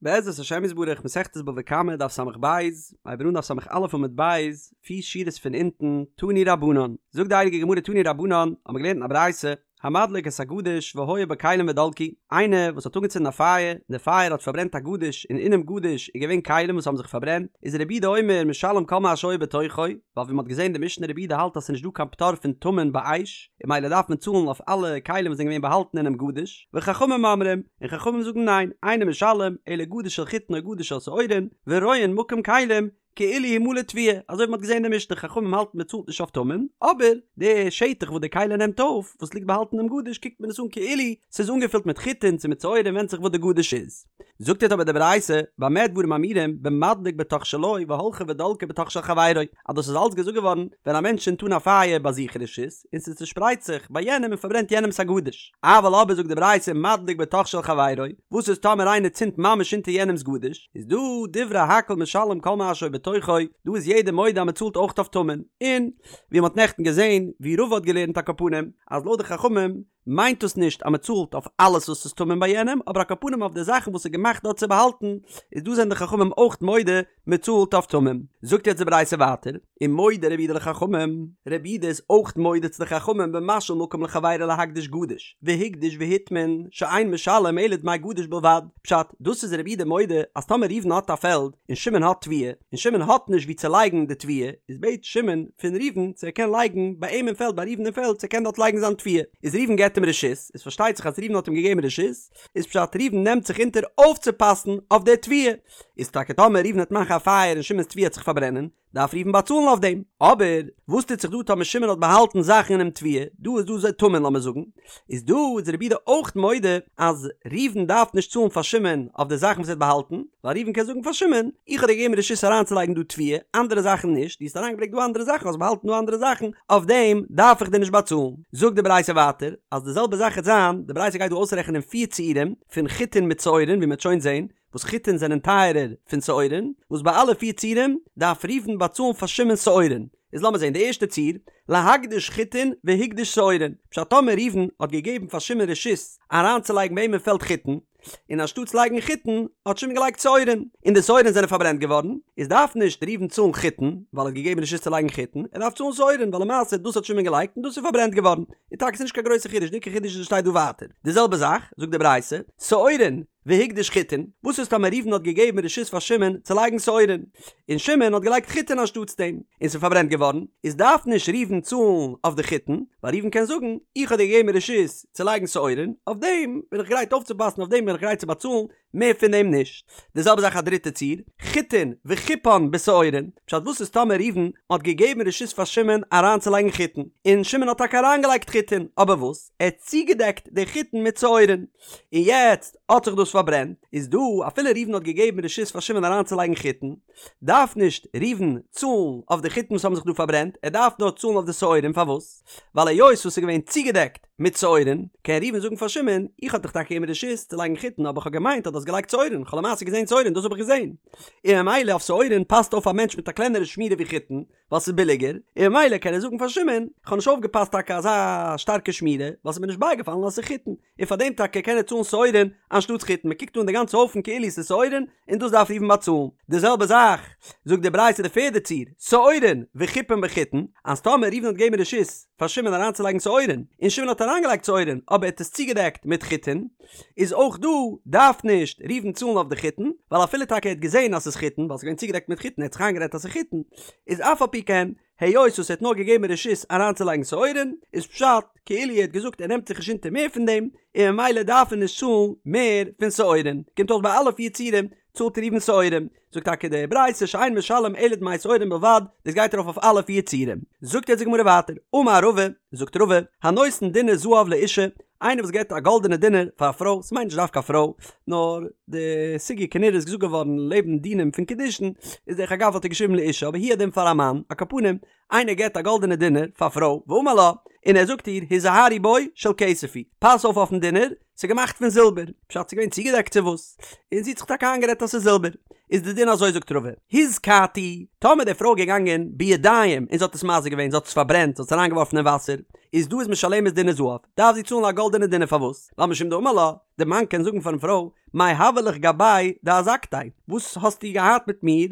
בעזרת השם יתברך מסכת בבא קמא דף ס"ב, הייבן אן דף ס"א עמוד ב', פיר שורות פון אונטן, תנו רבנן, זאגט די הייליגע גמרא תנו רבנן, האבן מיר געלערנט אין א ברייתא, המדליק את הגדיש והיה בו כלים ודלקו, איינער וואס האט אנגעצינדן א פייער, און די פייער האט פארברענט א גדיש און אינעם גדיש איז געווען כלים וואס האבן זיך פארברענט, איז רבי יהודה אומר משלם כל מה שהיה בתוכו, ווייל ווי מען האט געזען די משנה רבי יהודה האלט אז ס'איז נישט דא קיין פטור פון טמון באש, און ממילא דארף מען צאלן אויף אלע כלים וואס זענען געווען באהאלטן אינעם גדיש, וחכמים אומרים, און חכמים זאגן ניין, אינו משלם, אלא גדיש של חיטין או גדיש של שעורין, ורואין מקום כלים, כאילו הוא מלא תבואה, אזוי ווי מ'האט געזען אין די משנה, חכמים האלטן מ'צאלט נישט אויף טמון, אבער די שטח וואס די כלי נעמט אויף, וואס ליגט באהאלטן אינעם גדיש קוקט מען עס אן כאילו ס'איז אנגעפילט מיט חיטין צו מיט שעורים ווענדט זיך וואס די גדיש איז. זאגט אבער די ברייתא, במה דברים אמורים, במדליק בתוך שלו והלכה ודלקה בתוך של חברו, אז דאס איז אלץ געזאגט געווארן ווען א מענטש צינדט אן א פייער ביי זיך אין רשות, און ס'צושפרייט זיך ביי יענעם און פארברענט יענעמ'ס א גדיש. אבל אבער זאגט די ברייתא מדליק בתוך של חברו, וואס איז טאמער איינער צינדט ממש אונטער יענעמ'ס גדיש, איז דא דברי הכל משלם כל מה שהיה בתוכו, דא איז יעדער מודה אז מ'צאלט אויך אויף טמון, און ווי מ'האט נעכטן געזען ווי רבא האט געלערנט על כל פנים אז לויט די חכמים מיינט דאס נישט אז מען צאלט אויף אלעס וואס איז טמון ביי יענעם, אבער על כל פנים אויף די זאכן וואס איז געמאכט דארט צו באהאלטן, איז דא זענען די חכמים אויך מודה מען צאלט אויף טמון. זאגט יעצט די ברייתא ווייטער, ומודה רבי יהודה לחכמים, רבי יהודה איז אויך מודה צו די חכמים במשאיל מקום לחבירו להקדיש גדיש, והקדיש והטמין, שאין משלם אלא דמי גדיש בלבד, פשט, דאס איז רבי יהודה מודה אז טאמער ראובן האט א פעלד און שמעון האט תבואה, און שמעון האט נישט וואו צו לייגן די תבואה, איז בעט שמעון פון ראובן צו ער קען לייגן ביי אים אין פעלד ביי ראובן אין פעלד צו ער קען דארט לייגן זיין תבואה, איז ראובן געבט אים רשות, איז פארשטייט זיך אז ראובן האט אים געגעבן רשות, איז פשט ראובן נעמט זיך אונטער אויפצופאסן אויף די תבואה, איז טאקע טאמער ראובן וועט מאכן א פייער און שמעון'ס תבואה וועט זיך פארברענען, דארף ראובן באצאלן אויף דעם. אבער וואס טוט זיך דא טאמער שמעון האט באהאלטן זאכן אינעם תבואה, דא איז דא אזוי טמון לאמיר זאגן, איז דא איז רבי יהודה אויך מודה אז ראובן דארף נישט צאלן פאר שמעון אויף די זאכן וואס ער האט באהאלטן, ווייל ראובן קען זאגן פאר שמעון, איך האב דיר געגעבן רשות אריינצולייגן דא תבואה, אנדערע זאכן נישט, דו האסט אריינגעברענגט דא אנדערע זאכן, האסט באהאלטן דא אנדערע זאכן, אויף דעם דארף איך דיר נישט באצאלן. זאגט די ברייתא ווייטער, אז די זעלבע זאך וועט זיין, די ברייתא גייט דא אויסרעכענען פיר ציורים פון חיטין מיט שעורין ווי מען וועט שוין זען, וואס חיטין זענען טייערער פון שעורין, וואס ביי אלע פיר ציורים דארף ראובן באצאלן פאר שמעון שעורין. איז לאמיר זען די ערשטע ציור, להקדיש חיטין והקדיש שעורין, פשט טאמער ראובן האט געגעבן פאר שמעון רשות אריינצולייגן ביי אים אין פעלד חיטין, און אנשטאטס לייגן חיטין האט שמעון געלייגט שעורין, און די שעורין זענען פארברענט געווארן, איז דארף נישט ראובן צאלן חיטין, ווייל ער האט געגעבן רשות צו לייגן חיטין, ער דארף צאלן שעורין, ווייל למעשה דאס האט שמעון געלייגט און דאס איז פארברענט געווארן. און טאקע ס'איז נישט קיין גרויסע חידוש, די עיקר חידוש איז וואס שטייט דא ווייטער. די זעלבע זאך, זאגט די ברייתא, שעורין, והקדיש חיטין, וואס איז טאמער ראובן האט געגעבן רשות פאר שמעון צו לייגן שעורין, און שמעון האט געלייגט חיטין אנשטאטס דעם, און ס'איז פארברענט געווארן, איז דארף נישט ראובן צאלן אויף די חיטין, ווייל ראובן קען זאגן, איך האב דיר געגעבן רשות צו לייגן שעורין, אויף דעם בין איך גרייט אויפצופאסן, אויף דעם בין איך גרייט צו באצאלן, מער פון דעם נישט. די זעלבע זאך א דריטע ציור, חיטין וחיפן בשעורין, פשט וואס איז טאמער ראובן האט געגעבן רשות פאר שמעון אריינצולייגן חיטין, און שמעון האט טאקע אריינגעלייגט חיטין, אבער וואס? ער האט צוגעדעקט די חיטין מיט שעורין, און יעצט האט זיך דאס פארברענט, איז דא אפילו ראובן האט געגעבן רשות פאר שמעון אריינצולייגן חיטין, דארף נישט ראובן צאלן אויף די חיטין וואס האבן זיך דא פארברענט, ער דארף נאר צאלן אויף די שעורים, פארוואס? ווייל היות וואס ס'איז געווען צוגעדעקט מיט שעורים, קען ראובן זאגן פאר שמעון, איך האב דיך טאקע געגעבן רשות צו לייגן חיטין אבער איך האב געמיינט אז דו האסט געלייגט שעורים, איך האב למעשה געזען שעורים, דאס האב איך געזען. און ממילא אויף שעורים פאסט אויף א מענטש מיט א קלענערע שמירה ווי חיטין, ווייל ס'איז ביליגער, און ממילא קען ער זאגן פאר שמעון, איך האב נישט אויפגעפאסט טאקע אזא שטארקע שמירה, ווייל ס'איז מיר נישט בייגעפאלן אז ס'איז חיטין, און פאר דעם טאקע קען ער צאלן שעורים אנשטאטס חיטין, מ'קוקט אן די גאנצע הויפן כאילו ס'איז שעורים, און דאס דארף ראובן באצאלן. די זעלבע זאך זאגט די ברייתא די פערדע ציור, שעורים וחיפן בחיטין, אז טאמער ראובן האט געגעבן רשות פאר שמעון אריינצולייגן שעורים, און שמעון האט אריינגעלייגט שעורים אבער ער האט עס צוגעדעקט מיט חיטין, איז אויך דא דארף נישט ראובן צאלן אויף די חיטין, ווייל אפילו טאקע ער האט געזען אז ס'איז חיטין, ווייל ס'איז געווען צוגעדעקט מיט חיטין, ער האט זיך איינגערעדט אז ס'איז חיטין, איז אף על פי כן, היות וואס ער האט נאר געגעבן רשות אריינצולייגן שעורים, איז פשט כאילו ער האט געזאגט ער נעמט זיך נישט אונטער מער פון דעם, און ממילא דארף ער נישט צאלן מער פון שעורים. קומט אויס ביי אלע פיר ציורים צאלט ראובן שעורים. זאגט טאקע די ברייתא שאין משלם אלא דמי שעורים בלבד, דאס גייט ארויף אויף אלע פיר ציורים. זאגט יעצט די גמרא ווייטער, אמר רבא, זאגט רבא, הנותן דינר זהב לאשה, איינער וואס געבט א גאלדענע דינר פאר א פרוי, ס'מיינט נישט דווקא א פרוי, נאר די סוגיא כנראה איז געזאגט געווארן לעבן דינים פון קידושין, איז דרך אגב האט ער געשריבן לאשה אבער הוא הדין פאר א מאן, על כל פנים, איינער געבט א גאלדענע דינר פאר א פרוי, ואמר לה, און ער זאגט איר, היזהרי בו של כסף הוא, פאס אויף אויפן דינר, ס'איז געמאכט פון זילבער, פשט ס'איז געווען צוגעדעקט צו וואס, און זי האט זיך טאקע איינגערעדט אז ס'איז זילבער. איז די דין אזוי זאגט רבא, הזיקתו, טאמער די פרוי איז געגאנגען בידיים און זי האט עס מזיק געווען, זי האט עס פארברענט, זי האט עס אריינגעווארפן אין וואסער, איז דא איז משלמת דינר זהב, דארף זי צאלן א גאלדענע דינר פארוואס? ווייל משום דאמר לה, די מאן קען זאגן פארן פרוי, מאי הוה לך גבי דאזקתיה, וואס האסטו געהאט מיט מיר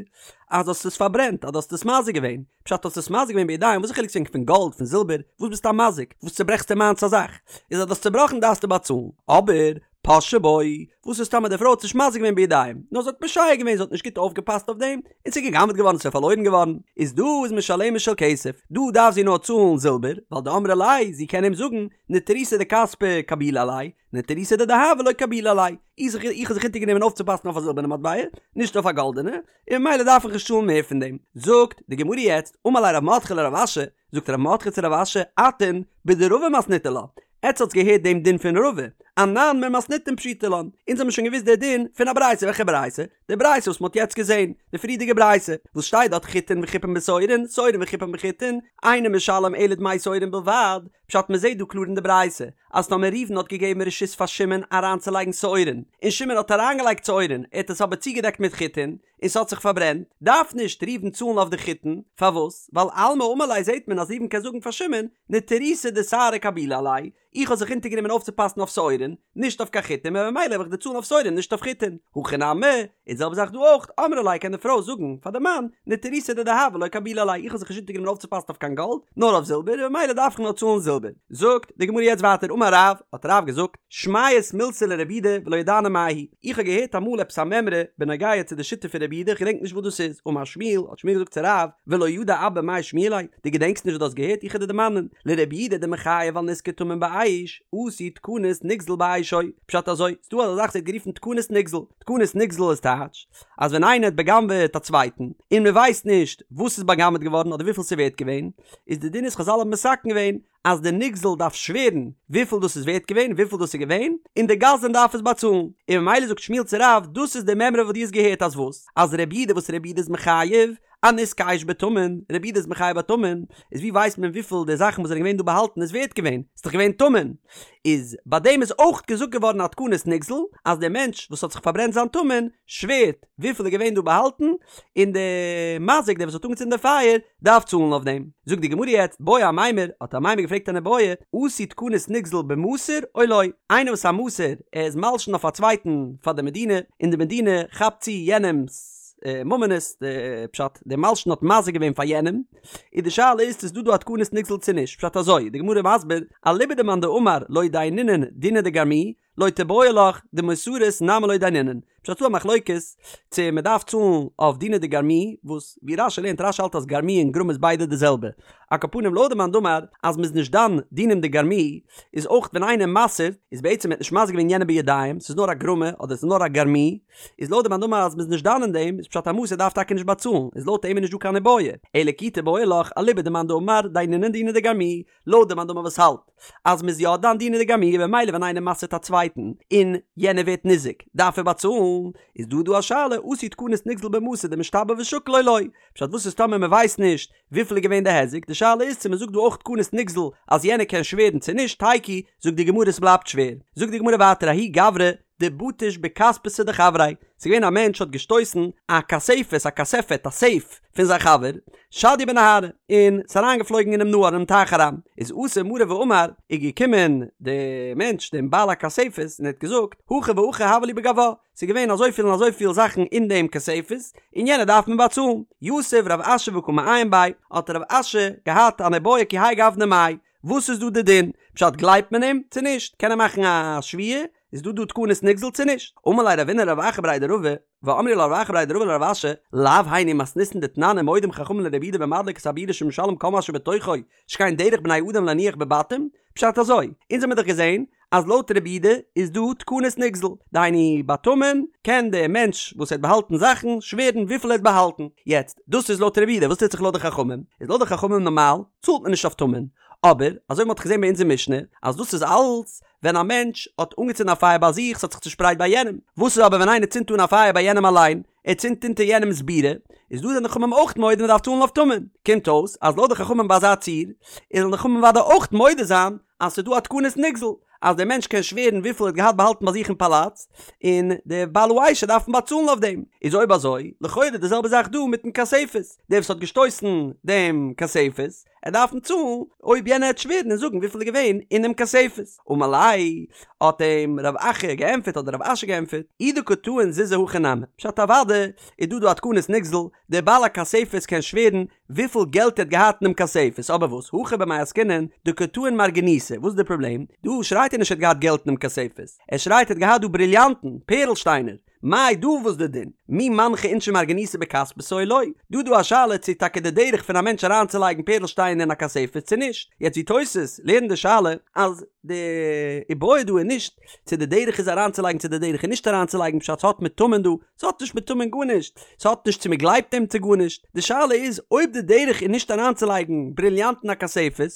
אז האסט עס פארברענט, אז דו האסט עס מזיק געווען, פשט האסט עס מזיק געווען בידיים, וואס איז חילוק צו פון גאלד, פון זילבער, וואס ביסטו א מזיק, וואס צוברעכסטו מיינס א זאך, איז אז דו האסט צובראכן דארפסטו באצאלן, אבער פשעה בו, וואס איז טאמער די פרוי האט נישט מזיק געווען בידיים, נאר זי האט פושע געווען, זי האט נישט גוט אויפגעפאסט אויף דעם, און ס'איז גע'גנב'ט געווארן, ס'איז פארלוירן געווארן, איז דא איז משלמת של כסף, דא דארף זי נאר צאלן זילבער, ווייל דאמרה ליה, זי קען אים זאגן, נטירותא דכספא קבילו עלי, נטירותא דדהבא לא קבילו עלי, איך האב זיך אונטערגענומען אויפצופאסן אויף א זילבערנע מטבע, נישט אויף א גאלדענע, און ממילא דארף איך נישט צאלן מער פון דעם. זאגט די גמרא יעצט, אמר ליה רב מרדכי לרב אשי, זאגט רב מרדכי צו רב אשי, אתון בדרבא מתניתו לה, עטס האטס געהערט דעם דין פון רבא, אנן ממתניתין פשיטא לן, אונז האבן שוין געוואוסט דער דין פון א ברייתא, וועלכע ברייתא? די ברייתא וואס מ'האט יעצט געזען, די פריערדיגע ברייתא, וואס שטייט דארט חיטין וחיפין בשעורין, שעורין וחיפין בחיטין, אינו משלם אלא דמי שעורין בלבד, פשט מ'זעט דא קלאר אין די ברייתא, אז טאמער ראובן האט געגעבן רשות פאר שמעון אריינצולייגן שעורין, און שמעון האט אריינגעלייגט שעורין, ער האט עס אבער צוגעדעקט מיט חיטין, און ס'האט זיך פארברענט, דארף נישט ראובן צאלן אויף די חיטין, פארוואס? ווייל אלמא אמר ליה זעט מען אז ראובן קען זאגן פאר שמעון, נטירותא דשערי קבילו עלי, איך האב זיך אונטערגענומען אויפצופאסן אויף שעורין, נישט אויף קיין חיטין, און ממילא וועל איך דיר צאלן אויף שעורין נישט אויף חיטין. הכא נמי, און די זעלבע זאך דא אויך, אמרה ליה קען די פרוי זאגן פאר די מאן, נטירותא דדהבא לא קבילו עלי, איך האב זיך נישט אונטערגענומען אויפצופאסן אויף קיין גאלד, נאר אויף זילבער, און ממילא דארף איך נאר צאלן זילבער. זאגט די גמרא יעצט ווייטער אמר רב, האט רב געזאגט, שמעית מילתא לרבי יהודה ולא ידענא מאי היא, איך האב געהערט אמאל עפעס א מימרא בנוגע צו די שיטה פון רבי יהודה, איך געדענק נישט וואס דאס איז, אמר שמואל, האט שמואל געזאגט צו רב, ולא ידע אבא מאי שמיע ליה, דו געדענקסט נישט וואס דו האסט געהערט, איך וועל דיר דערמאנען, לרבי יהודה דמחייב על נזקי טמון באש, עשו תקנת נגזל באשו, פשט אזוי, ס'דא אזא זאך ס'ווערט גערופן תקנת נגזל, תקנת נגזל איז טייטש, אז ווען איינער האט בא'גנב'עט א צווייטן, און מ'ווייסט נישט וואס איז בא'גנב'עט געווארן אדער וויפיל ס'איז ווערט געווען, איז די דין איז חזל האבן מתקן געווען, אז די נגזל דארף שווערן וויפיל דאס איז ווערט געווען, וויפיל דאס איז געווען, און די גזלן דארף עס באצאלן. און ממילא זאגט שמואל צו רב, דאס איז די מימרא וואס דו האסט געהערט אז וואס? אז רבי יהודה וואס רבי יהודה איז מחייב אנזקי אש בטמון, רבי יהודה איז מחייב ביי טמון, איז ווי ווייסט מען וויפיל די זאכן וואס זענען געווען דא באהאלטן איז ווערט געווען? ס'איז דאך געווען טמון. איז ביי דעם איז אויך געזאגט געווארן א תקנת נגזל, אז דער מענטש וואס האט זיך פארברענט זיין טמון, שווערט וויפיל איז געווען דא באהאלטן, און די מזיק דער וואס האט אנגעצינדן די פייער, דארף צאלן אויף דעם. זאגט די גמרא יעצט, בעי אמימר, האט אמימר געפרעגט אן איבעיא, עשו תקנת נגזל במסור או לא? איינער וואס א מסור, ער איז מלשין אויף א צווייטן פאר די מדינה, און די מדינה כאפט צו יענעמ'ס ממונות, די פשט, דער מלשין האט מזיק געווען פאר יענעם, איז די שאלה איז צו ס'איז דא דא א תקנת נגזל צו נישט, פשט אזוי, די גמרא מסביר, אליבא דמאן דאמר לא דיינינן דינא דגרמי, לא תיבעי לך דמסרות נמי לא דיינינן. פשט ס'דא א מחלוקת צו מען דארף צאלן אויף דינא דגרמי, וואס ווי רש"י לערנט רש"י האלט אז גרמי און גרמא איז ביידע די זעלבע. על כל פנים לויט די מאן דאמר אז מ'איז נישט דן דינים דגרמי, איז אויך ווען איינער מסר'ט איז בעצם ער האט נישט מזיק געווען יענעם בידיים, ס'איז נאר א גרמא אדער ס'איז נאר א גרמי, איז לויט די מאן דאמר אז מ'איז נישט דן אין דעם, איז פשט א מסור דארף טאקע נישט באצאלן, איז לויט אים איז נישט דא קיין איבעיא. אלא כי תיבעי לך אליבא דמאן דאמר דיינינן דינא דגרמי, לויט די מאן דאמר וואס האלט אז מ'איז יא דן דינא דגרמי במילא ווען איינער מסר'ט א צווייטן און יענער ווערט ניזוק דארף ער באצאלן, איז דא דא א שאלה עשו תקנת נגזל במסור דמשתבע ושקיל או לא, פשט וואס איז טאמער מ'ווייסט נישט וויפיל איז געווען די היזק, די שאלה איז צו מ'זאגט דא אויך תקנת נגזל אז יענער קען שווערן צו נישט, תיקו, זאגט די גמרא ס'בלייבט שווער, זאגט די גמרא ווייטער ההוא גברא דבטיש בכספתא דחבריה, ס'איז געווען א מענטש האט געשטויסן א כספת, א כספת, א סעיף, פון זיין חבר, שדיא בנהרא, און ס'איז אריינגעפלויגן אינעם נהר, אינעם טייך אריין, איז אתא מריה ואמר, איז געקומען די מענטש דעם בעל הכספת און ער האט געזאגט, הכי והכי הוה לי בגווה, ס'איז געווען אזויפיל און אזויפיל זאכן אין דעם כספת, און יענער דארף מיר באצאלן. יתיב רב אשי וקא מעיין ביה, האט רב אשי געהאט אן איבעיא כי האי גוונא מאי, וואס איז דא די דין? פשט גלייבט מען אים צו נישט? קען ער מאכן א שבועה? איז דא דא תקנת נגזל צו נישט? אמר ליה רבינא לרב אחא בריה דרבא, ואמרי לה רב אחא בריה דרבא לרב אשי, לאו היינו מתניתין דתנן ומודים חכמים לרבי יהודה במדליק את הבירה שמשלם כל מה שבתוכו, שכן דרך בני אדם להניח בבתים? פשט אזוי, אונז האמיר דאך געזען אז לויט רבי יהודה איז דא תקנת נגזל, דהיינו ביי טמון קען דער מענטש וואס האט באהאלטן זאכן שווערן וויפיל ער האט באהאלטן, יעצט דאס איז לויט רבי יהודה, וואס טוט זיך לויט די חכמים? איז לויט די חכמים נארמאל צאלט מען נישט אויף טמון, אבער אזוי ווי מ'האט געזען ביי אונזער משנה אז דאס איז אלץ ווען א מענטש האט אנגעצינדן א פייער ביי זיך ס'האט זיך צושפרייט ביי יענעם, וואס איז אבער ווען איינער צינדט אן א פייער ביי יענעם אליין, ער צינדט אונטער יענעמ'ס בירה, איז דא זענען די חכמים אויך מודה מ'דארף צאלן אויף טמון, קומט אויס אז לויט די חכמים ביי אזא ציור, איז זאלן די חכמים אוודאי אויך מודה זיין אז ס'איז דא א תקנת נגזל, אז דער מענטש קען שווערן וויפיל ער האט געהאט באהאלטן ביי זיך אין פאלאץ, און דער בעל האש דארף אים באצאלן אויף דעם. איז אויב אזוי, לכאורה די זעלבע זאך דא מיטן כספת, דער וואס האט געשטויסן דעם כספת, ער דארף אים צאלן אויב יענער העט שווערן און זאגן וויפיל איז געווען אינעם כספת. אמר ליה, האט אים רב אחא געענטפערט אדער רב אשי געענטפערט, אי דקא טעין זוזי הכי נמי, פשט אוודאי איז דא דא א תקנת נגזל, דער בעל הכספת קען שווערן וויפיל געלט ער האט געהאט אינעם כספת, אבער וואס, הכא במאי עסקינן, דקא טעין מרגניתא, וואס איז די פראבלעם? דא שרייט ער נישט ער האט געהאט געלט אינעם כספת, ער שרייט ער האט געהאט דא בריליאנטן, פערל שטיינער, מאי דא וואס די דין? מי מנחי אינשי מרגניתא בכספתא או לא? דא דא א שאלה צו טאקע די דרך פון א מענטש אריינצולייגן פערל שטיינער אין א כספת צו נישט, יעצט ווי תוס' לערנט די שאלה אז די איבעיא דא איז נישט צו די דרך איז אריינצולייגן צו די דרך איז נישט אריינצולייגן פשט ס'האט מיט טמון דא, ס'האט נישט מיט טמון גארנישט, ס'האט נישט צו מ'גלייבט אים צו גארנישט, די שאלה איז אויב די דרך איז נישט אריינצולייגן בריליאנטן אין א כספת,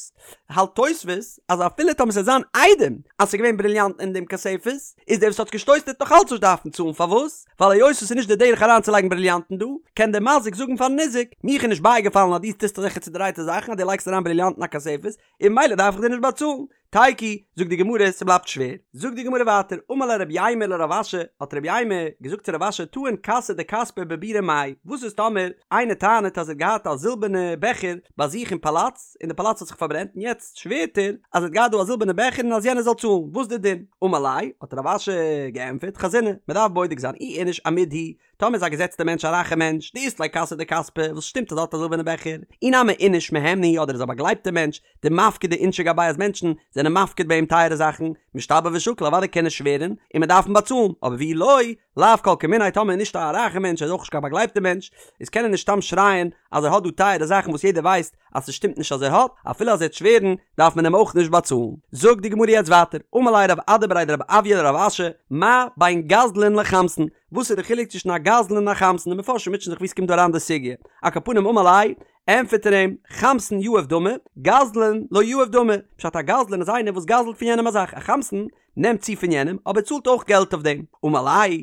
האלט תוספות אז אפילו טאמער ס'וועט זיין עדים אז ס'איז געווען בריליאנטן אין דעם כספת, איז דער וואס האט געשטויסן וועט נאך אלץ נישט דארפן צאלן, פארוואס? ווייל היות עס איז נישט די דרך אריינצולייגן בריליאנטן דא, קען דער מזיק זאגן פארן ניזק, מיך איז נישט בייגעפאלן אז דו טוסט אזעלכע צודרייטע זאכן אז דו לייגסט אריין בריליאנטן אין א כספת, און ממילא דארף איך דיר נישט באצאלן. תיקו, זאגט די גמרא, ס'בלייבט שווער. זאגט די גמרא ווייטער, אמר ליה רב יימר לרב אשי, האט רב יימר געזאגט צו רב אשי, טעין כסא דכספא בבירא מאי, וואס איז טאמער איינער טענה'ט אז ער האט געהאט א זילבערנע בעכער ביי זיך אין פאלאץ, און די פאלאץ האט זיך פארברענט, און יעצט שווערט ער אז ער האט געהאט דא א זילבערנע בעכער און אז יענער זאל צאלן, וואס איז די דין? אמר ליה, האט רב אשי געענטפערט, חזינא, מ'דארף בודק זיין, אי איניש אמיד הוא, טאמער איז א געזעצטע מענטש א רייכע מענטש, דאית ליה כסא דכספא, וואס שטימט אז ער האט א זילבערנע בעכער, אי נמי איניש מהימנא הוא אדער איז א באגלייבטע מענטש, דמפקדי אינשי גביה אז מענטשן זענען מפקיד ביי אים טייערע זאכן, משתבע ושקיל אוודאי קען ער שווערן, און מען דארף אים באצאלן, אבער ואי לא, לאו כל כמיניה טאמער איז נישט א רייכע מענטש ער איז אויך נישט קיין באגלייבטע מענטש, איז קען ער נישט סתם שרייען אז ער האט דא טייערע זאכן וואס יעדער ווייסט אז ס'שטימט נישט אז ער האט, אפילו אז ער וועט שווערן דארף מען אים אויך נישט באצאלן. זאגט די גמרא יעצט ווייטער, אמר ליה רב אדא בריה דרב אויא לרב אשי, מה בין גזלן לחמסן, וואס איז די חילוק צווישן א גזלן און א חמסן, די מפרשים מוטשען זיך ווי ס'קומט דא אריין די סוגיא, על כל פנים אמר ליה, ענטפערט ער אים, חמסן יהיב דמי, גזלן לא יהיב דמי, פשט א גזלן איז איינער וואס גזל'ט פון יענעם א זאך, א חמסן נעמט צו פון יענעם אבער צאלט אויך געלט אויף דעם, אמר ליה,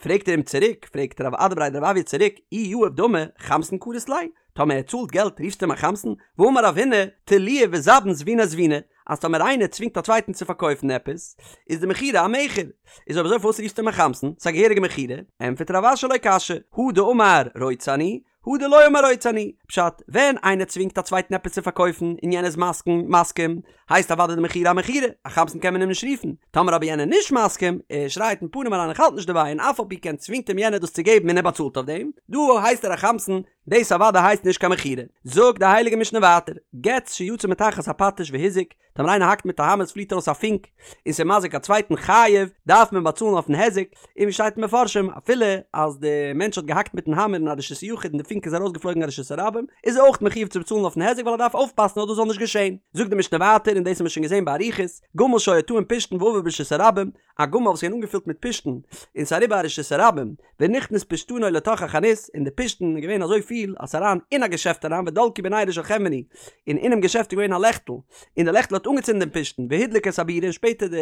פרעגט ער אים צוריק, פרעגט רב אדא בריה דרב אויא צוריק, אי יהיב דמי, חמסן קרית ליה, טאמער ער צאלט געלט רופסטו אים א חמסן? והאמר רב הונא, תלויי וזבין זביני זביני, אז טאמער איינער צווינגט א צווייטן צו פארקויפן עפעס, איז די מכירה א מכר. איז אויב אזוי פארוואס רופסטו אים א חמסן? ס'איז א געהעריגע מכירה. ענטפערט רב אשי לא קשיא, הא דאמר רוצה אני, הא דלא אמר רוצה אני. פשט, ווען איינער צווינגט א צווייטן עפעס צו פארקויפן און יענער איז מסכים, מסכים, הייסט אוודאי די מכירה א מכירה, א חמסן קען מען אים נישט רופן. טאמער אבער יענער נישט מסכים, ער שרייט אין פנים אריין איך האלט נישט דערביי און אף על פי כן צווינגט אים יענער דאס צו געבן און ער באצאלט אויף דעם, דא הייסט ער א חמסן, דאס אוודאי הייסט נישט קיין מכירה. זאגט די הייליגע משנה ווייטער, גץ שיצא מתחת הפטיש והזיק, טאמער איינער האקט מיט א האמער עס פליט ארויס א פונק, און ס'איז מזיק א צווייטן חייב, דארף מען באצאלן אויפן היזק, און ווי שטייט אין מפרשים, אפילו אז די מענטש האט געהאקט מיטן האמער אין א רשות היחיד און די פונק איז ארויסגעפלויגן אין רשות הרבים, איז ער אויך מחויב צו באצאלן אויפן היזק ווייל ער דארף אויפפאסן אז דאס זאל נישט געשען. זאגט די משנה ווייטער, און דאס האבן מיר שוין געזען באריכות, גמל שהיה טעון פשתן ועבר ברשות הרבים, א גמל וואס איז געווען אנגעפילט מיט פשתן, און ס'איז אריבער א רשות הרבים, ונכנס פשתנו לתוך החנות, און די פשתן איז געווען אזוי פיל אז ס'איז אריין אין א געשעפט אריין ודלקו בנרו של חנווני, און אינעם געשעפט איז געווען א לעכטל, און די לעכטל האט אנגעצינדן דעם פשתן, והדליק את הבירה און שפעטער די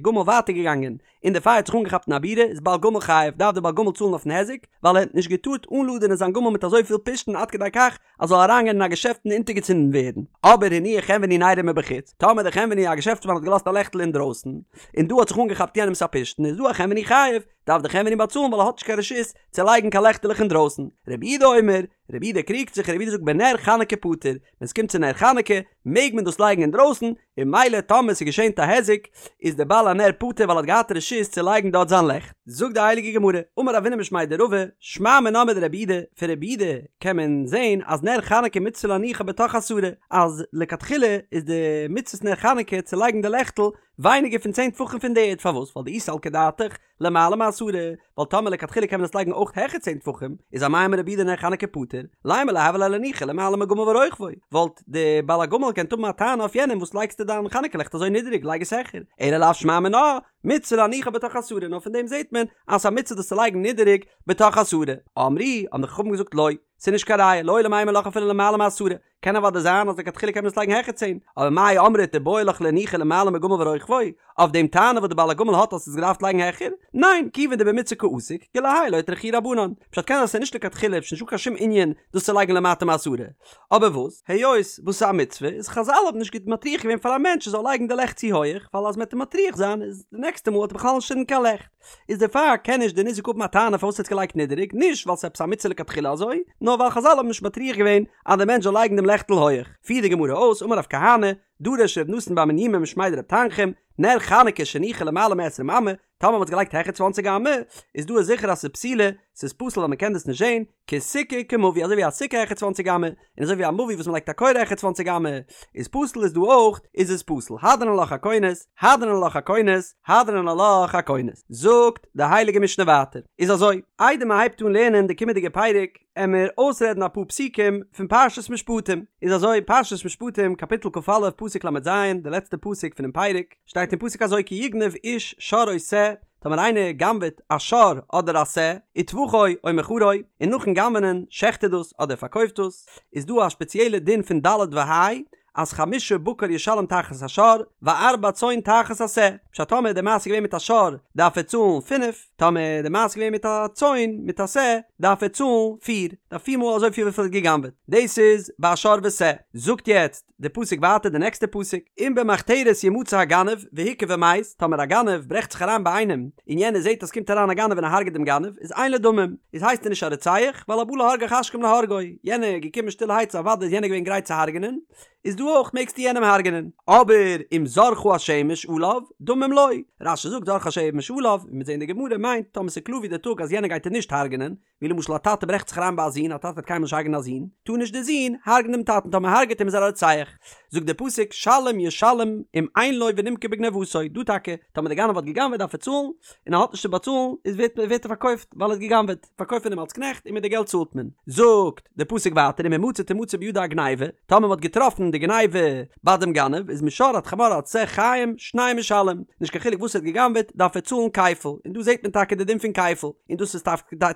גמל ווייטער געגאנגען, און די פייער האט זיך אנגעכאפט אין א בירה, איז בעל גמל חייב, דארף דער בעל גמל צאלן אויפן היזק, ווייל ער האט נישט געטארט אנלאדענען זיין גמל מיט אזוי פיל פשתן עד כדי כך אז זאל אריינגיין אין א געשעפט און אונטערגעצינדן ווערן. אבער הניח חנווני נרו מבחוץ, טאמער דער חנווני א געשעפטסמאן האט געלאזט א לעכטל אינדרויסן, און דא האט זיך אנגעכאפט יענעמס א פשתן, איז דא החנווני חייב, דארף דער חנווני באצאלן ווייל ער האט נישט קיין רשות צו לייגן קיין לעכטעלעך אינדרויסן. רבי יהודה אומר, רבי יהודה קריגט זיך, רבי יהודה זאגט בנר חנוכה פטור, ווען ס'קומט צו נר חנוכה מעג מען דאס לייגן אינדרויסן, און ממילא טאמער ס'איז געשען א היזק איז דער בעל הנר פטור ווייל ער האט געהאט רשות צו לייגן דארט זיין לעכט. זאגט די הייליגע גמרא, אמר רבינא משמיה דרבא, שמע מינה מדרבי יהודה, פון רבי יהודה קען מען זען אז נר חנוכה מצוה להניחה בתוך עשרה, אז לכתחילה איז די מצוות נר חנוכה צו לייגן די לעכטל ווייניגער פון צען טפחים פון די ערד, פארוואס? ווייל דאי סלקא דעתך למעלה מעשרה, ווייל טאמער לכתחילה קען מען עס לייגן אויך העכער צען טפחים, איז אמאי אמר רבי יהודה נר חנוכה פטור, לימא ליה הוה ליה להניחה למעלה מגמל ורוכבו, וואלט די בעל הגמל געקענט האבן א טענה אויף יענעם וואס לייגסטו דיין חנוכה לעכט אזוי נידעריג לייג עס העכער, אלא לאו שמע מינה, מצוה להניחה בתוך עשרה, נאר פון דעם זעט מען אז ס'איז א מצוה דאס צו לייגן נידעריג בתוך עשרה, אמרו, האבן די חכמים געזאגט לא, ס'איז נישט קיין ראיה, לעולם אימא לך אפילו למעלה מעשרה. קען אוודאי זיין אז לכתחילה קען מען עס לייגן העכער צען, אבער מאי אמרת איבעי לך לאנוחי למעלה מגמל ורוכבו, אויף דעם טענה וואס די בעל הגמל האט אז ס'איז געדארפט לייגן העכער? ניין, כיוון דבמצוה קא עסיק, כולי האי לא אטרחוהו רבנן. פשט קען זיין ס'איז נישט לכתחילה איז נישטא קיין שום ענין דאס צו לייגן למטה מעשרה. אבער וואס, היות וואס ס'איז א מצוה, איז חזל האבן נישט מטריח געווען פאר א מענטש ער זאל לייגן די לעכט צו הויעך, ווייל אז מ'עט אים מטריח זיין איז די נעקסטע מאל וועט ער בכלל נישט צינדן קיין לעכט. איז דערפאר קען נישט די ניזק האבן א טענה פארוואס ער האט געלייגט נידעריג, נישט ווייל ס'איז עפעס א מצוה לכתחילה אזוי, נאר ווייל חזל האבן נישט מטריח געווען אז די מענטש זאל לייגן דעם לעכטל הויעך. פירט די גמרא אויס, אמר רב כהנא, דרש ר' נתן בר מניומי משמיה דרב תנחום, נר חנוכה שהניחו למעלה מעשרים אמה, טאמער מ'האט עס געלייגט העכער צוואנציג אמה, איז דא איז זיכער אז ס'איז פסולה, ס'איז פסול ווייל מ'קען דאס נישט זען, כסוכה כמבוי אזוי ווי א סוכה העכער צוואנציג אמה, און אזוי ווי א מבוי וואס מ'לייגט א קורה העכער צוואנציג אמה איז פסול איז דא אויך איז עס פסול, הדרן עלך הכונס, הדרן עלך הכונס, הדרן עלך הכונס. זאגט די הייליגע משנה ווייטער, איז אזוי, איידער מ'הייבט אן לערנען די קומענדיגע פרק, עמיר אויסרעדן אפאר פסוקים פון פרשת משפטים, איז אזוי, פרשת משפטים קאפיטל כ"א פסוק ל"ז, די לעצטע פסוק פונעם פרק, שטייט אין פסוק אזוי כי יגנב איש שור או שה, טאמער איינער גנב'עט א שור אדער א שה, וטבחו או מכרו, און נאכן גנב'נען שעכט ער דאס אדער פארקויפט דאס, איז דא א שפעציעלע דין פון ד' וה', אז חמשה בקר ישלם תחת השור, וארבע צאן תחת השה, פשט טאמער די מעשה איז געווען מיט א שור דארף ער צאלן פינף, טאמער די מעשה איז געווען מיט א צאן מיט א שה דארף ער צאלן פיר, דארף פיר מאל אזויפיל וויפיל ער האט גע'גנב'עט, דאס איז ביי א שור ושה, זאגט יעצט די פסוק ווייטער די נעקסטע פסוק, אם במחתרת ימצא הגנב והוכה ומת, טאמער א גנב ברעכט זיך אריין ביי איינעם און יענער זעט אז ס'קומט אריין א גנב און ער הרג'ט דעם גנב, איז אין לו דמים, איז הייסט ער נישט א רוצח, ווייל הבא להרגך השכם להרגו, יענער איז געקומען שטילערהייט סאו אוודאי איז יענער געווען גרייט צו הרג'נען, איז דא אויך מעגסטו יענעם הרג'נען, אבער אם זרחה השמש עליו, דמים לו, רש"י זאגט זרחה השמש עליו, ווי מיר זעהן אין די גמרא מיינט טאמער ס'איז קלאר ווי די טאג אז יענער גייט אים נישט הרג'נען, ווי למשל א טאטע ברעכט זיך אריין ביי א זון, א טאטע וועט קיינמאל נישט הרג'נען א זון, טאר נישט די זון הרג'נען דעם טאטן, טאמער הרג'עט אים איז ער א רוצח. זאגט דער פסוק שלם ישלם אם אין לו ונמכר בגניבתו, דא טאקע, טאמער דער גנב האט גע'גנב'עט דארף ער צאלן, און ער האט נישט צו באצאלן, איז ווערט ווערט ער פארקויפט ווייל ער האט גע'גנב'עט, פארקויפט מען אים אלס קנעכט און מיט די געלט צאלט מען. זאגט דער פסוק ווייטער אם המצא תמצא בידו הגניבה, טאמער מען האט געטראפן די גניבה ביי דעם גנב, איז משור עד חמור עד שה חיים שניים ישלם, נישט קיין חילוק וואס ער האט גע'גנב'עט דארף ער צאלן כפל, און דא זעט מען טאקע די דין פון כפל, און דאס איז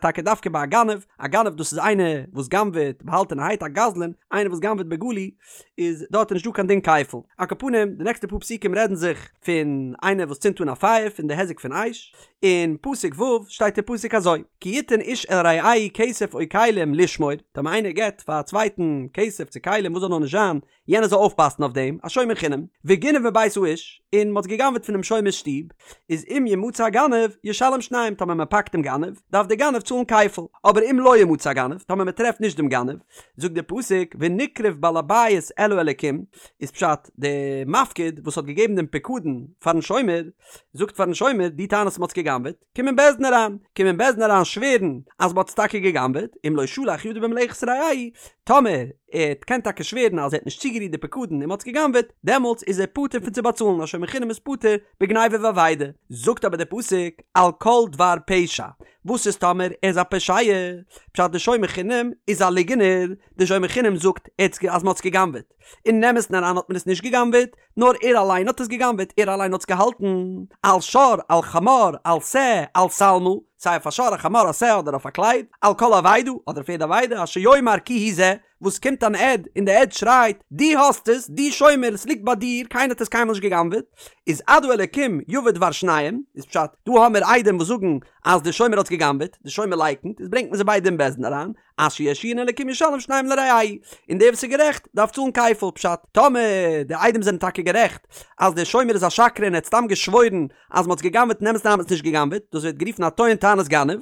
טאקע דווקא ביי א גנב, א גנב דאס איז איינער וואס גנב'עט באהאלטענערהייט, א גזלן, איינער וואס גנב'עט בגלוי, איז דארט איז נישט דא קיין דין כפל. על כל פנים, די נעקסטע פאר פסוקים רעדן זיך פון איינער וואס צינדט אן א פייער, פון די היזק פון אש, אין פסוק ו' שטייט אין פסוק אזוי, כי יתן איש אל רעהו כסף או כלים לשמור, טאמער איינער געבט פאר א צווייטן כסף צו כלים וואס זאל נאר נישט זיין, יענער זאל אויפפאסן אויף דעם, א שומר חינם, וגנב מבית האיש, און מ'האט גע'גנב'עט פונעם שומר'ס שטוב, איז אם ימצא הגנב, ישלם שניים, טאמער מ'פאקט דעם גנב, דארף דער גנב צאלן כפל, אבער אם לא ימצא הגנב, טאמער מ'טרעפט נישט דעם גנב, זאגט דער פסוק, ונקרב בעל הבית אל האלקים, איז פשט, דער מפקיד וואס האט געגעבן דעם פיקדון פארן שומר, זאגט פארן שומר, דו טענה'סט מ'האט עס גע'גנב'עט, קום אין בית דין אריין, קום אין בית דין אריין שווערן אז מ'האט עס טאקע גע'גנב'עט, אם לא שלח ידו במלאכת רעהו, טאמער ער קען טאקע שווערן אז ער האט נישט צוגערירט די פיקדון און מ'האט עס גע'גנב'עט, דעמאלטס איז ער פטור פון צו באצאלן, א שומר חינם איז פטור בגניבה ואבידה. זאגט אבער דער פסוק, על כל דבר פשע, וואס איז טאמער ער איז א פושע? פשט די שומר חינם איז א ליגענער, די שומר חינם זאגט אז מ'האט עס גע'גנב'עט, אין אמת'ן אריין האט מען עס נישט גע'גנב'עט, נאר ער אליין האט עס גע'גנב'עט, ער אליין האט עס געהאלטן, על שור, על חמור, על שה, על שלמה, סיי אויף א שור, א חמור, א שה, אדער אויף א קלייד, על כל אבידה, אדער אויף יעדע אבידה, אשר יאמר כי הוא זה, וואס קומט אן עד און די עד שרייט, דו האסט עס, דו שומר, עס ליגט ביי דיר, קיינער האט עס קיינמאל נישט גע'גנב'עט, איז עד האלקים יבא דבר שניהם, איז פשט, דא האמיר עדים וואס זאגן אז די שומר האט עס גע'גנב'עט, די שומר לייקנט, איז ברענגט מען זיי ביידע אין בית דין אריין, אשר ירשיען אלקים ישלם שניים לרעהו, און דער וואס איז גערעכט דארף צאלן כפל, פשט, טאמער די עדים זענען טאקע גערעכט אז דער שומר איז א שקרן און ער האט סתם געשוואוירן אז מ'האט עס גע'גנב'עט אין אמת'ן האט מען עס נישט גע'גנב'עט, דאס ווערט גערופן א טוען טענת גנב,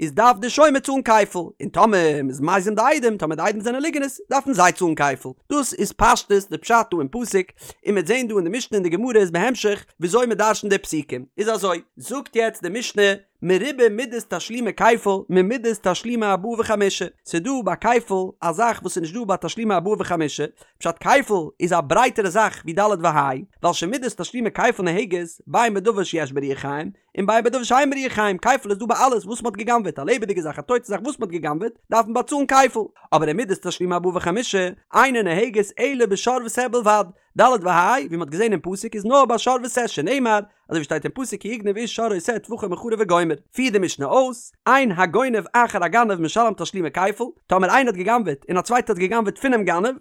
איז דארף דער שומר צאלן כפל, און טאמער מ'איז מזים די עדים, טאמער די עדים זענען ליגענערס, דארפן זיי צאלן כפל. דאס איז פשטות די פשט דא אין פסוק, און מ'וועט זען דא אין די משנה און די גמרא איז בהמשך וויאזוי מ'דרש'נט די פסוקים. איז אזוי, זאגט יעצט די משנה, מרובה מידת תשלומי כפל ממידת תשלומי ארבעה וחמישה, ס'איז דא ביי כפל א זאך וואס איז נישט דא ביי תשלומי ארבעה וחמישה, פשט כפל איז א ברייטערע זאך ווי ד' וה', ווייל שמידת תשלומי כפל נוהגת בין בדבר שיש בו רוח חיים, און בין בדבר שאין בו רוח חיים, כפל איז דא ביי אלעס וואס מ'האט גע'גנב'עט, א לעבעדיגע זאך א טויטע זאך וואס מ'האט גע'גנב'עט דארף מען באצאלן כפל, אבער ומידת תשלומי ארבעה וחמישה אינה נוהגת אלא בשור ושה בלבד, ד' וה' ווי מ'האט געזען אין פסוק איז נאר ביי שור ושה שנאמר אזוי ווי שטייט אין פסוק כי יגנב איש שור או שה טבחו או מכרו וגומר, פירט די משנה אויס, אין הגונב אחר הגנב משלם תשלומי כפל, טאמער איינער האט גע'גנב'עט און א צווייטער האט גע'גנב'עט פונעם גנב.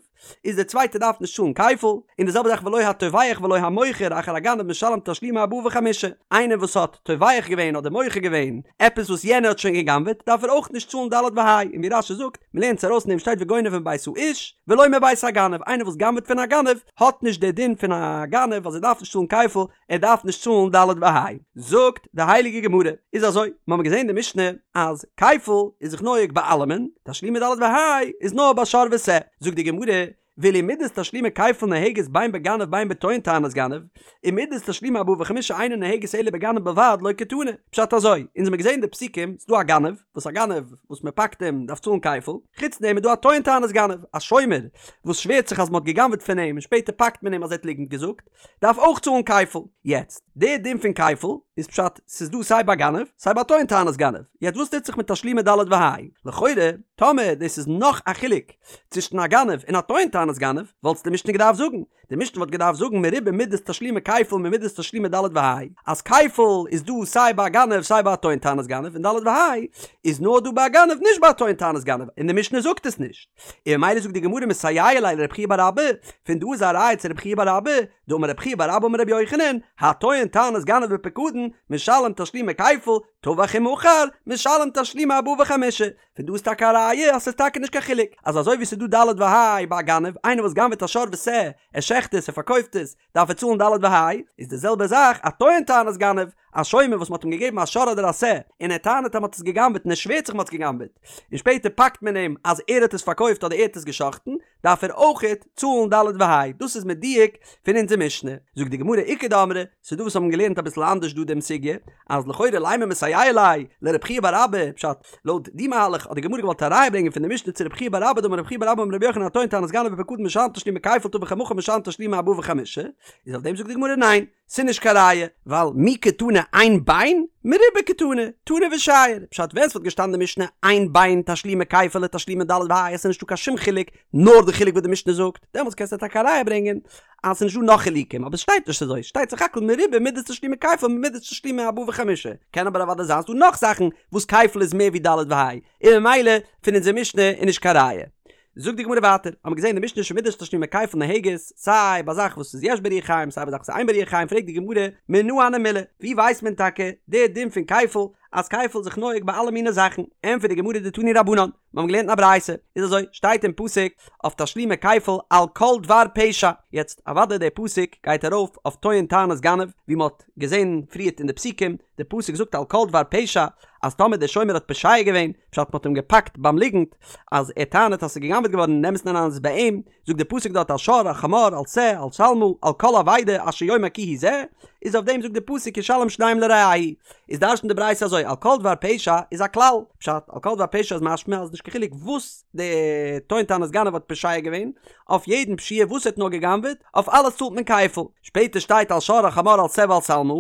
איז דער צווייטער דארף נישט צאלן כפל, און די זעלבע זאך ולא הטובח ולא המוכר אחר הגנב משלם תשלומי ארבעה וחמישה, איינער וואס האט טובח געווען אדער מוכר געווען עפעס וואס יענער האט שוין גע'גנב'עט דארף ער אויך נישט צאלן ד' וה', און ווי רש"י זאגט, מ'לערנט עס ארויס אין דעם שטייט וגונב מבית האיש ולא מבית הגנב, איינער וואס גנב'עט פון א גנב האט נישט די דין פון א גנב אז ער דארף נישט צאלן כפל, ער דארף נישט צאלן ד' וה'. זאגט די הייליגע גמרא, איז אזוי, מיר האבן געזען אין די משנה אז כפל איז זיך נוהג ביי אלעמען, תשלומי ד' וה' איז נאר ביי שור ושה, זאגט די גמרא, ואילו מידת תשלומי כפל נוהגת בין בגנב בין בטוען טענת גנב, ומידת תשלומי ארבעה וחמישה אינה נוהגת אלא בגנב בלבד לא קתני, פשט אזוי, אונז האבן געזען די פסוקים, ס'דא א גנב, וואס א גנב וואס מען פאקט אים דארף צאלן כפל, חוץ דעם איז דא א טוען טענת גנב, א שומר וואס שווערט זיך אז מען האט גע'גנב'עט פון אים און שפעטער פאקט מען אים אז ער האט ליגנט געזאגט, דארף אויך צאלן כפל. יעצט, די דין פון כפל איז פשט ס'איז דא סיי ביי גנב סיי ביי טוען טענת גנב. יעצט וואס טוט זיך מיט תשלומי ד' וה'? לכאורה, טאמער דאס איז נאך א חילוק צווישן א גנב און א טוען טענת גנב, וואלט די משנה געדארפט זאגן. די משנה וואלט געדארפט זאגן מרובה מידת תשלומי כפל ממידת תשלומי ד' וה', אז כפל איז דא סיי ביי א גנב סיי ביי א טוען טענת גנב און ד' וה' איז נאר דא ביי א גנב נישט ביי א טוען טענת גנב און די משנה זאגט עס נישט. און ממילא זאגט די גמרא מסייע ליה לרב חייא בר אבא, פון דא איז א ראיה צו רב חייא בר אבא, דאמר רב חייא בר אבא אמר רבי יוחנן, הטוען טענת גנב בפקדון, משלם תשלומי כפל, טבח ומכר, משלם תשלומי ארבעה וחמישה. פון דא איז טאקע א ראיה אז ס'איז טאקע נישט קיין חילוק, אז אזוי ווי ס'איז דא ד' וה' ביי א גנב, איינער וואס גנב'עט א שור ושה, ער שעכט עס, ער פארקויפט עס, דארף ער צאלן ד' וה', איז די זעלבע זאך א טוען טענת גנב, א שומר וואס מ'האט אים געגעבן א שור אדער א שה, און ער טענה'ט אז מ'האט עס גע'גנב'עט און ער שווערט זיך מ'האט עס גע'גנב'עט, און שפעטער פאקט מען אים אז ער האט עס פארקויפט אדער ער האט עס גע'שחט'ן, דארף ער אויכעט צאלן ד' וה', דאס איז מדויק פון אונזער משנה. זאגט די גמרא איכא דאמרי, ס'איז דא וואס האבן געלערנט אביסל אנדערש דא דעם סוגיא, אז לכאורה לימא מסייע ליה לרב חייא בר אבא, פשט, לויט די מהלך האט די גמרא געוואלט א ראיה ברענגען פון די משנה צו רב חייא בר אבא דאמר רב חייא בר אבא אמר רבי יוחנן הטוען טענת גנב בפקדון משלם תשלומי כפל טבח ומכר משלם תשלומי ארבעה וחמישה, איז אויף דעם זאגט די גמרא ניין, ס'איז נישט קיין ראיה, ווייל מי קתני אין בין, מרובה קתני, תנא ושייר, פשט ווען ס'וואלט געשטאנען די משנה אין בין תשלומי כפל לתשלומי ד' וה' עס איז נישטא קיין שום חילוק נאר די חילוק וואס די משנה זאגט, דעמאלטס קענסטו טאקע א ראיה ברענגען אז ס'איז נישטא נאך חילוקים, אבער ס'שטייט נישט אזוי, ס'שטייט סך הכל מרובה מידת תשלומי כפל ממידת תשלומי ארבעה וחמישה, קען אבער אוודאי זיין ס'דא נאך זאכן וואס כפל איז מער ווי ד' וה', און ממילא פון אונזער משנה איז נישט קיין ראיה. זאגט די גמרא ווייטער, האמיר געזען אין די משנה שמידת תשלומי כפל נוהגת, סיי ביי זאך וואס איז יש בה רוח חיים סיי ביי זאך וואס איז אין בה רוח חיים, פרעגט די גמרא, מנא הני מילי, ווי ווייסט מען טאקע די דין פון כפל, אז כפל איז זיך נוהג ביי אלע מיני זאכן, ענטפערט די גמרא דתנו רבנן, מיר האבן געלערנט אין א ברייתא, איז אזוי, שטייט אין פסוק אויף תשלומי כפל על כל דבר פשע, יעצט אוודאי דער פסוק גייט ארויף אויף טוען טענת גנב, ווי מען האט געזען פריערט אין די פסוקים, די פסוק זאגט על כל דבר פשע, אז טאמער דער שומר האט פושע געווען, פשט מען האט אים געפאקט ביים ליגנט, אז ער טענה'ט אז ס'איז גע'גנב'עט געווארן אין אמת'ן אריין איז עס ביי אים, זאגט די פסוק דארט על שור על חמור על שה על שלמה על כל אבידה אשר יאמר כי הוא זה, איז אויף דעם זאגט די פסוק ישלם שניים לרעהו, איז דרש'נט די ברייתא אזוי על כל דבר פשע איז א כלל, פשט על כל דבר פשע איז משמע אז נישט קיין חילוק וואס די טוען טענת גנב האט פושע געווען, אויף יעדן פשיעה וואס ער האט נאר גע'גנב'עט, אויף אלעס צאלט מען כפל, שפעטער שטייט על שור על חמור על שה ועל שלמה,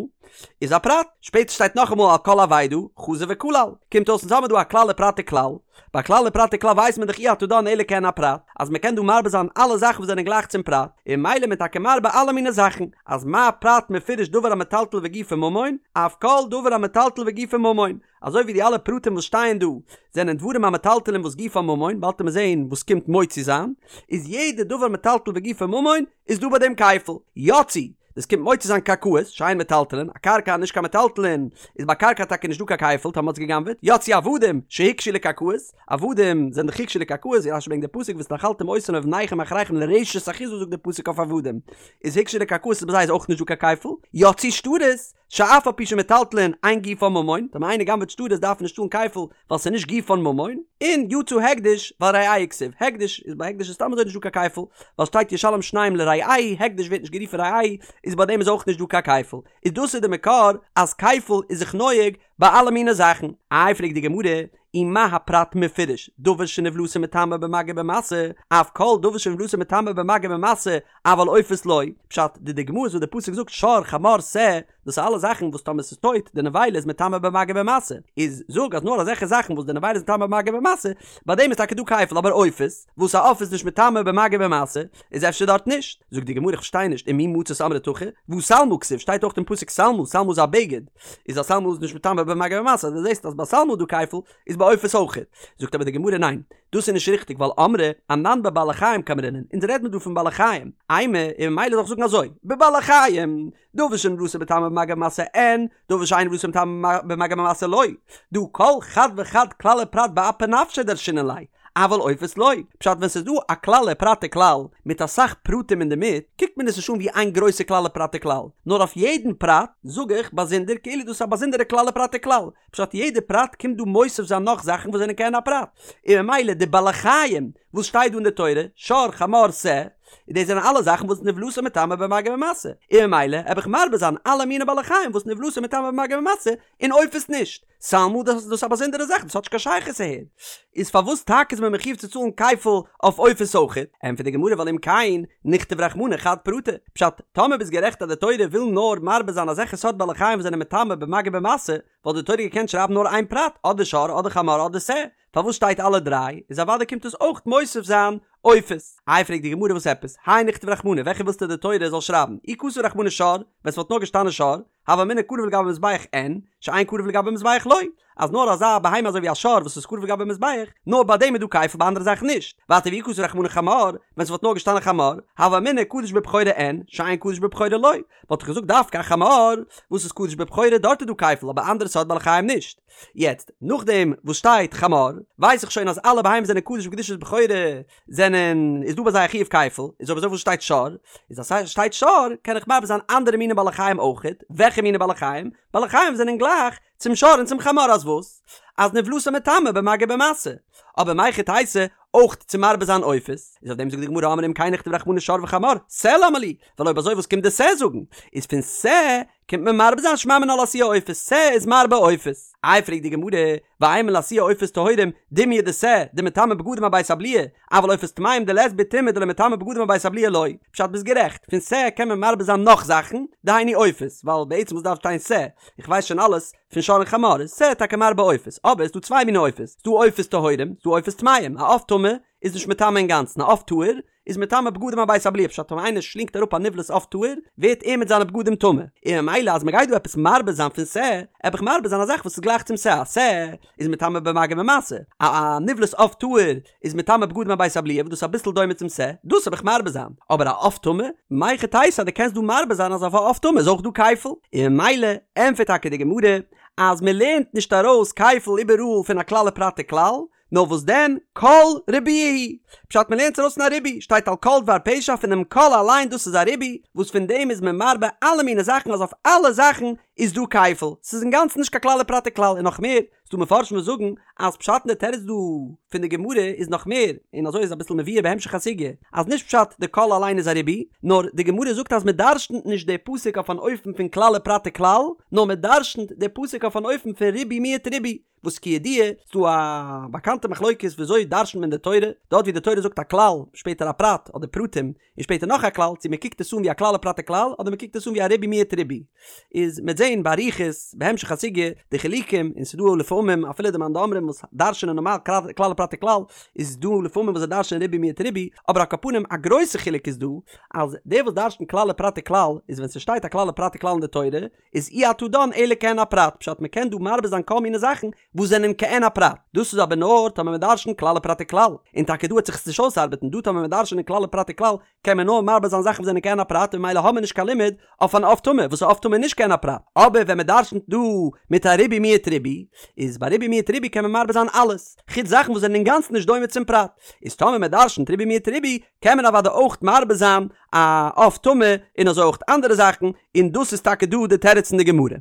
איז א פרט, שפעטער שטייט נאכאמאל על כל אבידה, חזר וכלל, קומט אויס אונז האמיר דא א כלל ופרט וכלל, ביי כלל ופרט וכלל ווייסט מען דאך אי אתה דן אלא כעין הפרט, אז מען קען דא מרבה זיין אלע זאכן וואס זענען גלייך צום פרט, און ממילא איז מען טאקע מרבה אלע מיני זאכן, אז מה פרט מפורש דבר המטלטל וגופו ממון, אף כל דבר המטלטל וגופו ממון, אזוי ווי די אלע פרטים וואס שטייען דא זענען דברים המטלטלין וואס גופן ממון, באלד וועט מען זעהן וואס קומט מוציא זיין, איז יעדע דבר מטלטל וגופו ממון איז דא ביי דעם כפל, יצאו, דאס קומט מוציא זיין קרקעות, שאין מטלטלין, א קרקע נישט קיין מטלטלין, איז ביי קרקע טאקע נישט דא קיין כפל טאמער מ'האט עס גע'גנב'עט, יצאו עבדים, שהוקשו לקרקעות, עבדים זענען דאך הוקשו לקרקעות, ווי רש"י ברענגט די פסוק והתנחלתם אותם לבניכם אחריכם לרשת אחוזה זאגט די פסוק אויף עבדים, איז הוקשו לקרקעות איז ביי זיי איז אויך נישט דא קיין כפל, יצאו שטרות, שאף על פי שמטלטלין אין גופן ממון, טאמער איינער גנב'עט שטרות דארף ער נישט צאלן כפל ווייל ס'איז נישט גופן ממון, און יצא הקדש ווייל רעהו כתיב, הקדש איז ביי הקדש איז סתם אזוי נישט דא קיין כפל, ווייל שטייט ישלם שניים לרעהו, הקדש ווערט נישט גערופן רעהו, איז ביי דעם איז אויך נישט דא קיין כפל, איז דאס איז די מקור אז כפל איז זיך נוהג ביי אלע מיני זאכן. איי פרעגט די גמרא, ומה הפרט מפורש, דבר שנבלתו מטמא במגע ובמשא, אף כל דבר שנבלתו מטמא במגע ובמשא, אבל עופות לא, פשט, די דוגמאות וואס די פסוק זאגט שור, חמור, שה, דאס איז אלע זאכן וואס טאמער ס'איז טויט, די נבילה איז מטמא במגע ובמשא, איז זאג אז נאר אזעלכע זאכן וואס די נבילה איז מטמא במגע ובמשא, ביי דעם איז טאקע דא כפל, אבער עופות, וואס א עוף איז נישט מטמא במגע ובמשא, איז אפשר דארט נישט. זאגט די גמרא איך פארשטיי נישט, ומי מצית אמרת הכי, והא שלמה כתיב, שטייט אויך אין פסוק שלמה, שלמה איז א בגד, איז א שלמה איז נישט מטמא במגע ובמשא, אז דו זעסט אז ביי שלמה איז דא כפל, איז ביי. ביי עופות אויכעט. זאגט אבער די גמרא ניין, דאס איז נישט ריכטיג ווייל אמרי אנן בבעלי חיים קאמרינן, אונז רעד מיר דא פון בעלי חיים, אימא, און ממילא זאל איך זאגן אזוי, בבעלי חיים, דבר שנבלתו מטמא במגע ובמשא אין, דבר שאין נבלתו מטמא במגע ובמשא לא, דהא כל חד וחד כלל ופרט באפי נפשיה דרשינן ליה, אבל עופות לא, פשט ווען ס'איז דא א כלל ופרט וכלל מיט אסאך פרטים אינדערמיט, קוקט מען עס נישט אן ווי איין גרויסע כלל ופרט וכלל, נאר אויף יעדן פרט זאג איך באזונדער כאילו דאס איז א באזונדערע כלל ופרט וכלל, פשט יעדע פרט קומט דא מוסיף זיין נאך זאכן וואס זענען כעין הפרט, און ממילא די בעלי חיים וואס שטייט דא אין די תורה, שור חמור שה, דאס זענען אלע זאכן וואס נבלתו מטמא במגע ובמשא, און ממילא העב איך מרבה זיין אלע מיני בעלי חיים וואס נבלתו מטמא במגע ובמשא, און עופות נישט. שלמה דאס איז דאס א באזונדערע זאך דאס האט נישט קיין שייכות אהער. איז פארוואס טאקע איז מען מחיוב צו צאלן כפל אויף עופות אויכעט? ענטפערט די גמרא ווייל אם כן נכתוב רחמנא חד פרטא. פשט, טאמער ביסט גערעכט אז די תורה וויל נאר מרבה זיין אזעלכע סארט בעלי חיים וואס זענען מטמא במגע ובמשא, וואלט די תורה געקענט שרייבן נאר איין פרט, אדער שור אדער חמור אדער שה. פארוואס שטייט אלע דריי? איז אוודאי קומט עס אויך מוסיף זיין עופות. איי פרעגט די גמרא וואס עפעס? הי נכתוב רחמנא וועלכע ווילסטו די תורה זאל שרייבן? אי כתב רחמנא שור, ווען ס'וואלט נאר געשטאנען שור, הוה אמינא קרב לגבי מזבח אין, שאין קרב לגבי מזבח לא, אז נאר אזא בהמה אזוי ווי א שור וואס איז קרב לגבי מזבח, נאר ביי דעם איז דא כפל ביי אנדערע זאכן נישט. ווייטער ואי כתב רחמנא חמור, ווען ס'וואלט נאר געשטאנען חמור, הוה אמינא קדוש בבכורה אין, שאין קדוש בבכורה לא, וואלט איך געזאגט דווקא א חמור וואס איז קדוש בבכורה דארט איז דא כפל אבער אנדערע סארט בעלי חיים נישט. יעצט, נאכדעם וואס שטייט חמור, ווייס איך שוין אז אלע בהמות זענען קדוש בקדושת בכורה זענען, איז דא ביי זיי א חיוב כפל, איז אויב אזוי וואס שטייט שור? איז אז ס'שטייט שור קען איך מרבה זיין אנדערע מיני בעלי חיים אויכעט, וועלכע מיני בעלי חיים? בעלי חיים זענען גלייך צום שור און צום חמור אז וואס? אז נבלתו מטמא במגע ובמשא, אבער מהיכי תיתי אויך צו מרבה זיין עופות, איז אויף דעם זאגט די גמרא אמרי אם כן נכתוב רחמנא שור וחמור, שה למה לי, ווייל אויב אזוי וואס קומט די שה זאגן? איז פון שה קומט מען מרבה זיין שמע מינה לאתויי עופות, שה איז מרבה עופות. איי פרעגט די גמרא, ואימא לאתויי עופות טהורים, דומיא דשה, דמטמא בגדים אבית הבליעה, אבל עופות טמאים דלית בהו טומאה דלא מטמא בגדים אבית הבליעה לא. פשט ביסט גערעכט, פון שה קען מען מרבה זיין נאך זאכן, דהיינו עופות, ווייל בעצם וואס דארף שטיין שה, איך ווייס שוין אלעס פון שור און חמור, איז שה טאקע מרבה עופות, אבער ס'דא צוויי מיני עופות, ס'דא עופות טהורים, ס'דא עופות טמאים, א עוף טמא איז נישט מטמא אינגאנצן, א עוף טהור איז מטמא בגדים אבית הבליעה פשט ווען איינער שלינגט אראפ א נבלת עוף טהור ווערט ער מיט זיינע בגדים טמא און ממילא אז מ'גייט דא עפעס מרבה זיין פון שה עב איך מרבה זיין א זאך וואס איז גלייך צום שה א שה איז מטמא במגע ובמשא א א נבלת עוף טהור איז מטמא בגדים אבית הבליעה וואס דאס איז אביסל דומה צום שה דאס עב איך מרבה זיין אבער א עוף טמא מהיכי תיתי אז דו קענסט דא מרבה זיין אז אויף א עוף טמא איז אויך דא כפל און ממילא ענטפערט טאקע די גמרא אז מ'לערנט נישט ארויס כפל איבעראל פון א כלל ופרט וכלל נאר וואס דען, כל ריבויא הוא. פשט מ'לערנט עס ארויס פון א ריבוי, שטייט על כל דבר פשע פונעם כל אליין דאס איז א ריבוי, וואס פון דעם איז מען מרבה אלע מיני זאכן אז אויף אלע זאכן איז דא כפל, ס'איז אינגאנצן נישט קיין כלל ופרט וכלל און נאך מער, ס'דא מפרשים וואס זאגן אז פשט אין די תירוץ דא פון די גמרא איז נאך מער, און אזוי איז אביסל מבואר בהמשך הסוגיא, אז נישט פשט די כל אליין איז א ריבוי, נאר די גמרא זאגט אז מ'דרש'נט נישט די פסוק אויף אן אופן פון כלל ופרט וכלל, נאר מ'דרש'נט די פסוק אויף אן אופן פון ריבוי מיעוט ריבוי. וואס כידוע איז דא א באקאנטע מחלוקת וויאזוי דרש'נט מען די תורה, דארט ווי די תורה זאגט א כלל, שפעטער א פרט אדער פרטים, און שפעטער נאך א כלל, צו מען קוקט עס אן ווי א כלל ופרט וכלל, אדער מען קוקט עס אן ווי א ריבוי מיעוט ריבוי. איז מ'עט זעהן באריכות בהמשך הסוגיא די חילוקים, און ס'איז דא לפעמים אפילו די מאן דאמרים וואס דרש'נען נארמאל כלל ופרט וכלל, איז דא לפעמים וואס זיי דרש'נען ריבוי מיעוט ריבוי, אבער על כל פנים א גרויסע חילוק איז דא, אז דער וואס דרש'נט כלל ופרט וכלל, איז ווען ס'שטייט א כלל ופרט וכלל אין די תורה, איז אי אתה דן אלא כעין הפרט, פשט מ'קען דא מרבה זיין כל מיני זאכן וואס זענען כעין הפרט, דאס איז אבער נאר טאמער מ'דרש'נט כלל ופרט וכלל, און טאקע דא וועט זיך עס נישט אויסארבעטן, דא טאמער מ'דרש'נט כלל ופרט וכלל קען מען נאר מרבה זיין זאכן וואס זענען כעין הפרט און ממילא האבן מיר נישט קיין לימוד אויף אן עוף טמא וואס א עוף טמא איז נישט כעין הפרט, אבער ווען מ'דרש'נט דא מיט א ריבוי מיעוט ריבוי, איז ביי ריבוי מיעוט ריבוי קען מען מרבה זיין אלעס, חוץ זאכן וואס זענען אינגאנצן נישט דומה צום פרט, איז טאמער מ'דרש'נט ריבוי מיעוט ריבוי קען מען אוודאי אויך מרבה זיין א עוף טמא און אזוי אויך אנדערע זאכן, און דאס איז טאקע דא די תירוץ אין די גמרא.